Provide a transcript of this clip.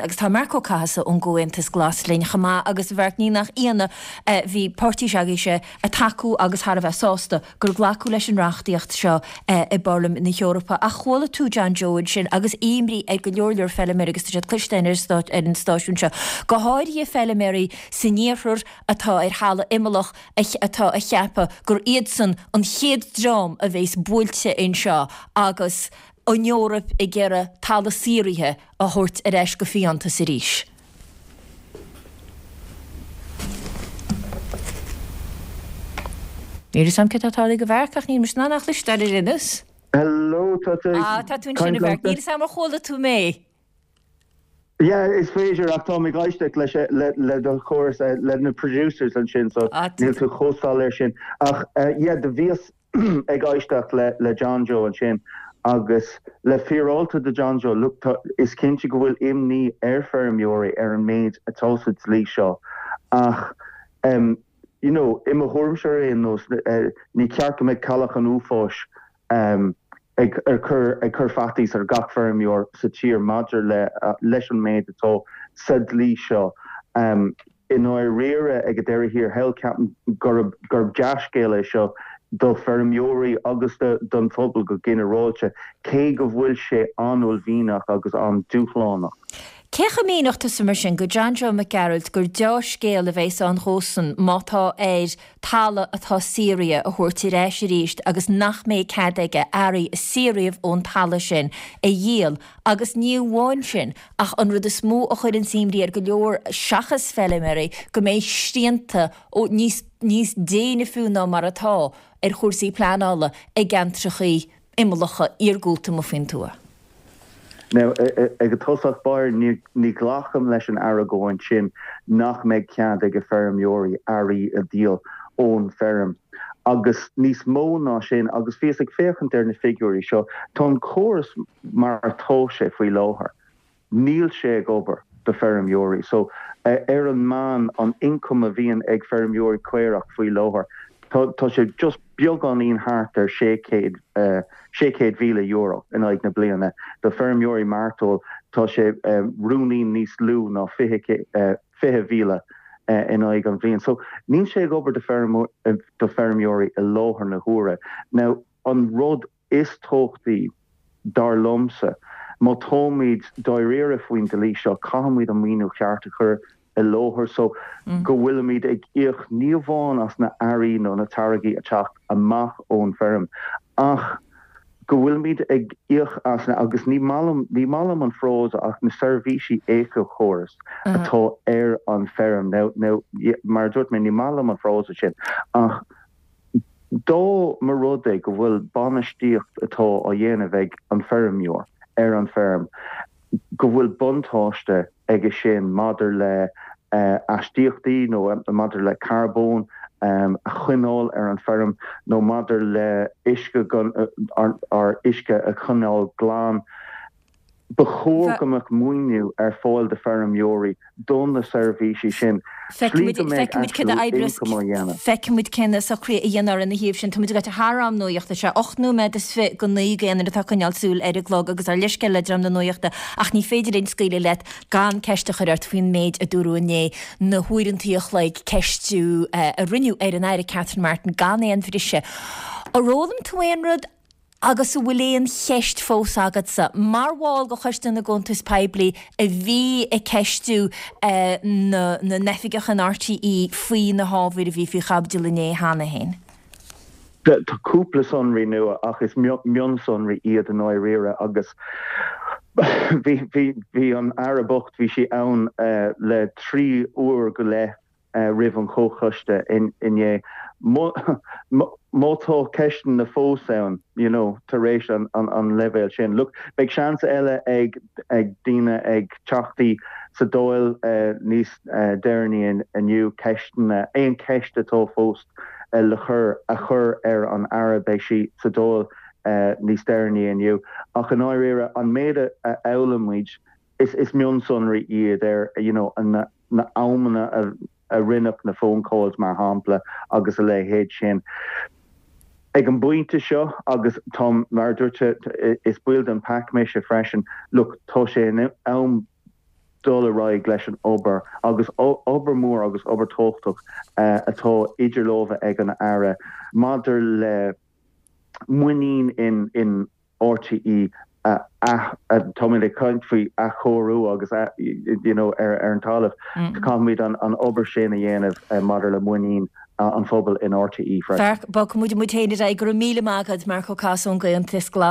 Agus tá Marc Ó Cathasaigh ón gComhaontas Glas linn chomh maith agus a Mhairc ní nach ionadh bhí páirtí s'agaibhse ag tacú agus thar a bheith sásta gur glacadh leis an reachtaíocht seo i bParlaimint na hEorpa. Ach chuala tú John Joe ansin agus imní ar go leor leor feilméaraí agus tá siad cloiste ar an stáisiún seo, go háirithe feilméaraí san iarthar atá ar thalamh imeallach atá ag ceapadh gur iadsan an chéad dream a bheas buailte anseo agus an Eoraip ag iarraidh talamh saothraithe a thabhairt ar ais go fiántas arís. Níl fhios a'm céard atá tarlaithe go Mharc ach níl mise in ann é a chloisteáil ar aon nós. Hello, tá tú ag Ah, tá tú ansin a caint Mharc. liomsa? Níl fhios a'm ar chuala tú mé. Yeah, is féidir ach táim ag éisteacht leis le le do chóras le na producers ansin so Ah, tá níl tú chomh soiléir sin. Ach yeah, do bhíos ag éisteacht le John Joe ansin agus le fíreáilte do John Joe, look, tá, is cinnte go bhfuil imní ar feirmeoirí ar an méid atá sa dlí seo ach em you know, i mo thuairimse ar aon nós, ní ceart go mbeadh cailleach an uafáis em ag ag cur ag cur faitíos ar gach feirmeoir sa tír maidir le leis an méid atá sa dlí seo. Em. I ndáiríre, ag an deireadh thiar thall, ceapaim gurb gurb dea-scéal é seo do feirmeoirí agus don phobal go ginearálta, cé go bhfuil sé an-uaillmhianach agus an-dúshlánach. Cé chomh míneodh tusa mar sin go John Joe Mac Gearailt gur deá-scéal a bheas ann dhósan má tá air talamh atá saothraithe a thabhairt ar ais arís agus nach mbeidh cead aige earraí a saothraíodh ón talamh sin a dhíol agus ní amháin sin ach an rud is mó a chuireanns imní ar go leor seachas feilméaraí go mbeidh srianta níos níos déine fiú ná mar atá ar chúrsaí pleanála i gceantrachaí imeallacha iargúlta amuigh faoin tuath. Now, ag an tosach báire, ní ghlacaim leis an argóint sin nach mbeidh cead ag feirmeoirí earraí a dhíol ón bhfeirm. Agus níos mó ná sin, agus bhíos ag féachaint ar na figiúirí seo, tá an córas mar atá sé faoi láthair, níl sé ag obair do feirmeoirí. So, ar an meán, an ioncam a bhíonn ag feirmeoirí caorach faoi láthair, tá sé just beagáinín thart ar €600,000 in aghaidh na bliana. Do feirmeoirí mairteoil, tá sé ruainnín níos lú ná 20,000 in aghaidh an bhliain. So, níl sé ag obair do feirmeoirí i láthair na huaire. Now, an rud is tábhachtaí, dar liomsa, má táimid dáiríre faoin dlí seo, caithfimid an maoiniú cheart a chur i láthair so go bhfuilimid ag íoc ní amháin as na earraí nó na táirgí ag teacht amach ón bhfeirm ach go bhfuilimid ag íoc as na, agus ní maith liom, ní maith liom an frása ach na seirbhísí éiceachórais atá ar an bhfeirm. Now, now, mar a dúirt mé, ní maith liom an frása sin ach Dá mba rud é go bhfuil bainistíocht atá á dhéanamh ag an feirmeoir ar an bhfeirm, go bhfuil buntáiste aige sin maidir le aistíochtaí nó maidir le carbón a choinneáil ar an bhfeirm nó maidir le uisce, ár uisce a choinneáil glan, Ba chóir go mbeadh maoiniú ar fáil do feirmeoirí do na seirbhísí sin, slí go mbeidh actual income á dhéanamh. Feicfimid cé na socruithe a dhéanfar ina thaobh sin. Táimid ag gabháil thar am nuachta. Sé 8 nóiméad is fi go 9 d'aon duine atá ag coinneáil súil ar an gclog agus ár leithscéal le dream na nuachta ach ní féidir linn scaoileadh leat gan ceist a chur ort faoin méid a dúradh inné, na huaireantaí a chloig ceistiú a rinneadh ar an Aire Catherine Martin gan aon bhriseadh. Ar fhoghlaim tú aon rud? Agus an bhfuil aon cheist fós agatsa, mar bhall de Choiste na gCuntas Poiblí a bhí ag ceistiú na n-oifigeach in RTÉ faoi na hábhair a bhí faoi chaibidil inné cheana féin? Tá cúpla sonraí nua ach is mionsonraí iad i ndáiríre agus bhí an Aire bocht, bhí sí ann le 3 uair go leith roimh an chomhchoiste inné. Má tá ceisteanna fós ann, you know, tar éis an leibhéal sin, look, beidh seans eile ag daoine, ag teachtaí sa Dáil níos deireanaí inniu ceisteanna, aon cheist atá fós le cur, a chur ar an Aire, beidh sí sa Dáil níos deireanaí inniu. Ach i ndáiríre, an méid a fhoghlaim muid, is mionsonraí iad ar, you know, na na amanna a rinneadh na phone calls mar shampla agus a leithéid sin. Ag an bpointe seo, agus táim, mar a dúirt, is baill den PAC mise freisin, look, tá sé in am. dul ar aghaidh leis an obair agus obair mhór agus obair tábhachtach atá idir lámha ag an Aire maidir le muinín in RTÉ a táimid ag caint faoi athchóiriú agus you know ar an talamh caithfimid an obair sin a dhéanamh maidir le muinín an phobail in RTÉ freisin. Bogfaidh muid muid féin ar aghaidh. Go raibh míle maith agat, Marc Ó Casaide ón gComhaontas Glas.